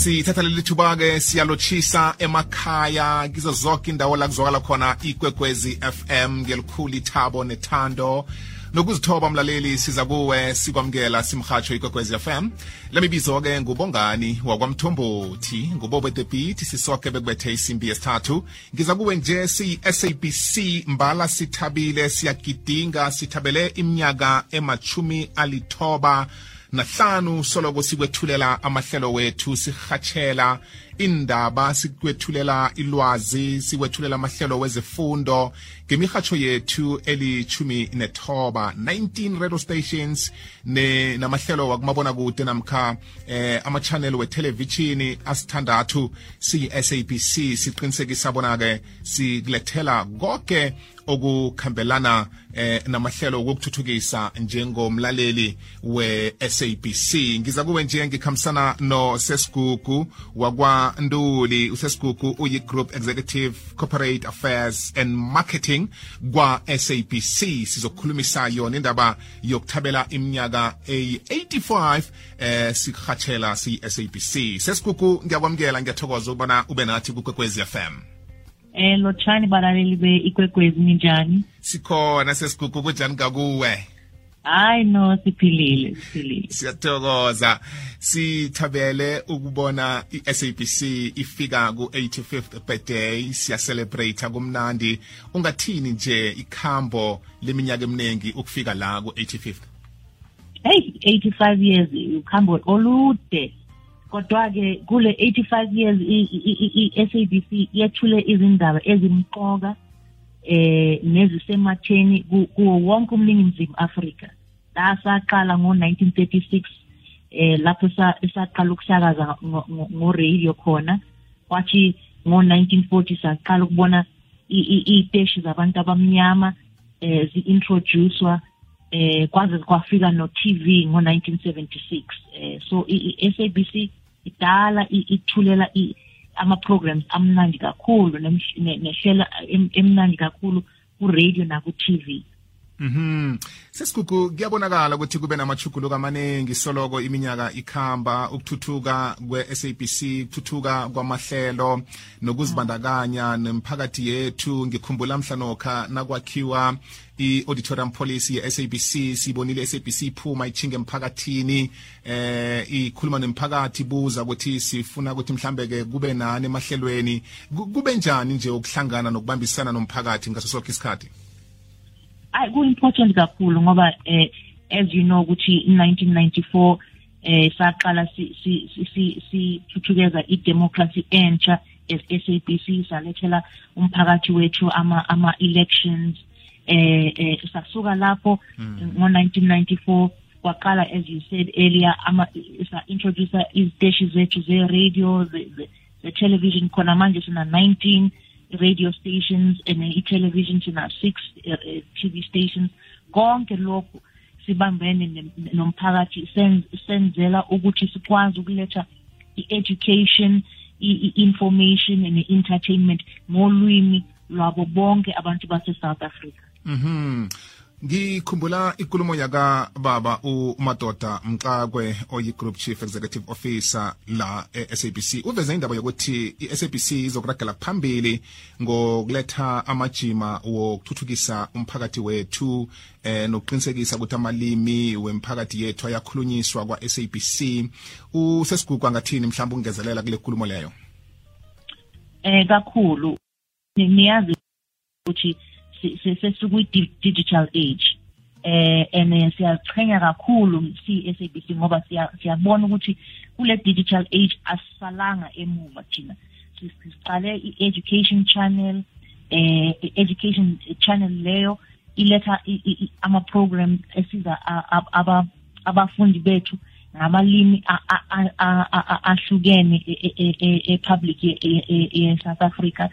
Sithatha leli thuba ke siyalochisa emakhaya kizo zonke indawo la kuzwakala khona iKwekwezi FM ngelikhulu ithabo nethando nokuzithoba mlaleli siza kuwe sikwamkela simhatsho iKwekwezi FM. Lemibizo ke ngubongani wakwamthombothi ngubobe the beat sisoke bekubethe isimbi yesithathu. Ngiza kuwe nje SABC mbala sithabile siyagidinga sithabele iminyaka emachumi alithoba nahlanu soloko sikwethulela amahlelo wethu sihatshela indaba sikwethulela ilwazi sikwethulela amahlelo wezifundo ngemihatsho yethu elichumi nethoba 19 radio stations namahlelo wakumabona kude namkha ama-channel we-television asithandathu siyi-SABC siqinisekisa bona ke sikulethela konke okukhambelana namahlelo wokuthuthukisa njengomlaleli we-SABC. Ngiza kuwe nje ngikhambisana no Sesigugu wakwaNduli. uSesigugu uyi-Group Executive Corporate Affairs and Marketing kwa-SABC. Sizokhulumisa yona indaba yokuthabela iminyaka eyi-85 sikhatshela siyi-SABC. Sesigugu ngiyakwamukela ngiyathokoza ukubona ube nathi kuKwekwezi FM. Lotshani balaleli be-iKwekwezi ninjani? Sikhona Sesigugu kunjani kakuwe? Hayi no siphilile. Siyathokoza. Sithabele ukubona iSABC ifika ku-85th birthday siyacelebrate kumnandi. Ungathini nje ikhambo leminyaka eminingi ukufika la ku-85th? Hey, 85 years ukhambo olude. Kodwa ke kule 85 years iSABC yethule izindaba ezimqoka nezisematheni kuwo wonke umningizimu Afrika. Saqala ngo1936 lapho saqala ukusakaza ngo-radio khona. Kwathi ngo1940 saqala ukubona iteshi zabantu abamnyama zi-introducewa kwaze kwafika no-TV ngo1976. So iSABC idala ithulela ama-programs amnandi kakhulu nehlela emnandi kakhulu ku-radio naku-TV. Sesigugu kuyabonakala ukuthi kube namachuguluko amaningi soloko iminyaka ikhamba ukuthuthuka kwe-SABC ukuthuthuka kwamahlelo nokuzibandakanya nemphakathi yethu. Ngikhumbula mhlanokha nakwakhiwa i-auditorium policy ye-SABC sibonile iSABC iphuma ichinge emphakathini ikhuluma nemphakathi buza ukuthi sifuna ukuthi mhlambe ke kube nani emahlelweni kube njani nje ukuhlangana nokubambisana nomphakathi ngaso sonke isikhathi. Ku-important kakhulu ngoba as you know ukuthi in 1994 saqala sithuthukeza i-democracy entsha as SABC salethela umphakathi wethu ama-elections sasuka lapho ngo-1994 kwaqala as you said earlier sa-introduce iziteshi zethu ze-radio the-television khona manje sina 19 radio stations and i-television sina 6 TV stations. Konke lokhu sibambene nomphakathi senzela ukuthi sikwazi ukuletha i-education, i-information and i-entertainment ngolwimi lwabo bonke abantu base-South Africa. Ngikhumbula ikulumo yaka baba uMadoda Mxakwe oyi-Group Chief Executive Officer la e-SABC uveze indaba yokuthi i-SABC izokuragela phambili ngokuletha amajima wokuthuthukisa umphakathi wethu nokuqinisekisa ukuthi amalimi wemphakathi yethu ayakhulunyiswa kwa-SABC. uSesigugu angathini mhlawumbe ungezelela kule nkulumo leyo? Kakhulu niyazi ukuthi sesikuyi-digital age and siyaqhenya kakhulu si-SABC ngoba siyabona ukuthi kule digital age asisalanga emuva thina. Siqale i-education channel education channel leyo iletha ama-program esiza abafundi bethu ngamalimi ahlukene e-public ye-South Africa.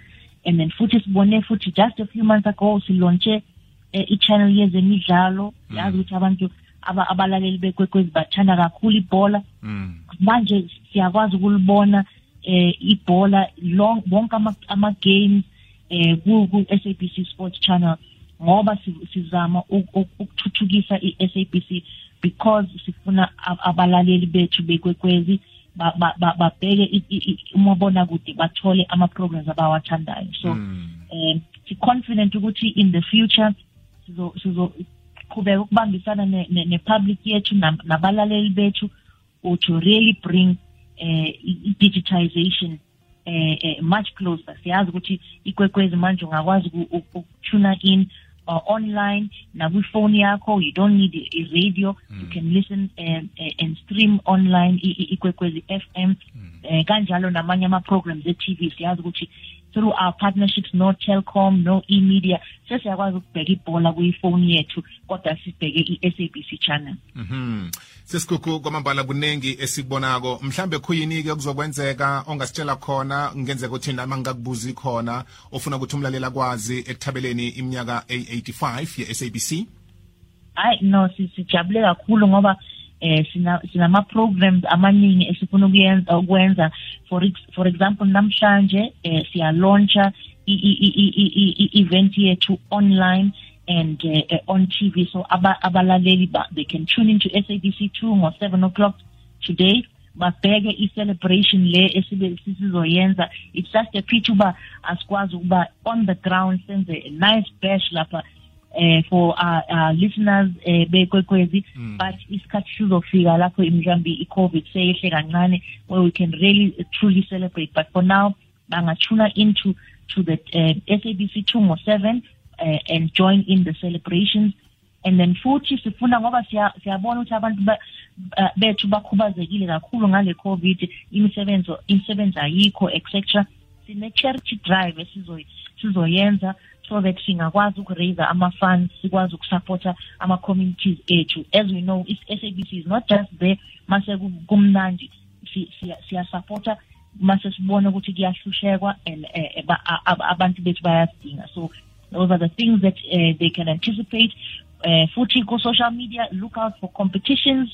And then futhi sibone futhi just a few months ago silonche i-channel yezemidlalo. Yazi ukuthi abantu abalaleli beKwekwezi bathanda kakhulu ibhola. Manje siyakwazi ukulibona ibhola bonke ama-games ku-SABC Sports Channel ngoba sizama ukuthuthukisa i-SABC because sifuna abalaleli bethu beKwekwezi babheke umabona kude bathole ama-programs abawathandayo. So si confident ukuthi in the future sizoqhubeka ukubambisana ne-public yethu nabalaleli bethu to really bring digitization much closer. Siyazi ukuthi ikwekwezi manje ungakwazi ukutuna in online na phone yakho. You don't need a radio. You can listen and stream online ikwekwezi FM kanjalo namanye ama programs e-TV. Siyazi ukuthi through our partnerships, no Telkom, no e-media, sesiyakwazi ukubheka ibhola kuyifoni yethu kodwa sibheke i-SABC channel. Sesikhukhu kwamambala kunengi esikubonako, mhlambe khuyini ke kuzokwenzeka ongasitshela khona ngenzeka ukuthi nami ngikakubuza khona ofuna ukuthi umlalela kwazi ekuthabeleni iminyaka 85 ye-SABC? Hayi no, sijabule kakhulu ngoba sinama programs amaningi esifuna ukwenza. For example, namhlanje siya launcha event yethu online and on TV, so abalaleli they can tune into SABC2 ngo 7 o'clock today. Babheke i-celebration le esizoyenza. It's just a pity uba asikwazi ukuba on the ground senze a nice bash lapha for our listeners bekwekwezi, but isikhathi sizofika lapho mhlambi i-COVID seyehle kancane where we can really truly celebrate. But for now bangatuna into the SABC2 ngo 7 and join in the celebrations. And then futhi sifuna ngoba siyabona ukuthi abantu bethu bakhubazekile kakhulu ngale COVID, imisebenzi ayikho etc. Sine charity drive sizoyenza so that singakwazi ukuraise ama-funds, sikwazi ukusupporta ama-communities ethu. As we know, SABC is not just there mase kumnandi, siyasupporta mase sibona ukuthi kuyahlushekwa and abantu bethu bayasidinga. So those are the things that they can anticipate. Futhi ko social media, look out for competitions.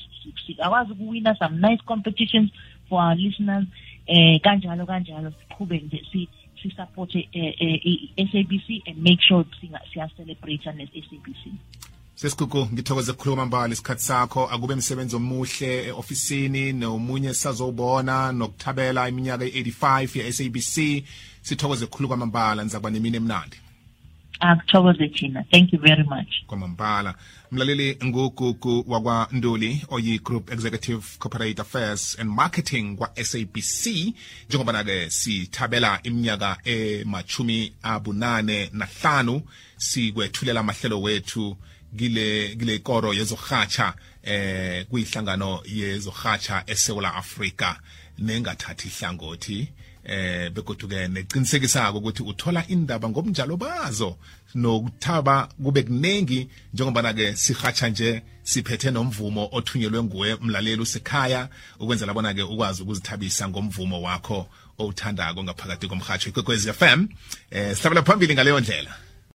Sikwazi ukuwina some nice competitions for our listeners. Kanjalo siqhube nje support SABC and make sure siya celebrate as SABC. Sesikhukhu ngithokoze ukukhuluma mbali isikhathi sakho, akube umsebenzi omuhle eofisini nomunye sazobona nokuthabela iminyaka 85 ye-SABC. Sithokoze ukukhuluma kwamambala, nizakuba nemini emnandi. Akuthokoze thina. Thank you very much. Kwamambala mlaleli ngugugu wakwa Nduli oyi Group Executive Corporate Affairs and Marketing kwa SABC. Njengoba nake sithabela iminyaka ma85 sikwethulela amahlelo wethu gile koro yezohatsha kuyihlangano yezohatsha eSouth Africa nengathathi ihlangothi begoduke neqinisekisa ukuthi uthola indaba ngobunjalo bazo nokuthaba kube kunengi. Njengoba nake sihatsha nje siphethe nomvumo othunyelwe nguwe mlaleli usekhaya ukwenzela bona ke ukwazi ukuzithabisa ngomvumo wakho owuthandako ngaphakathi komhatsho iKwekwezi FM. Sihlabela phambili ngaleyo ndlela.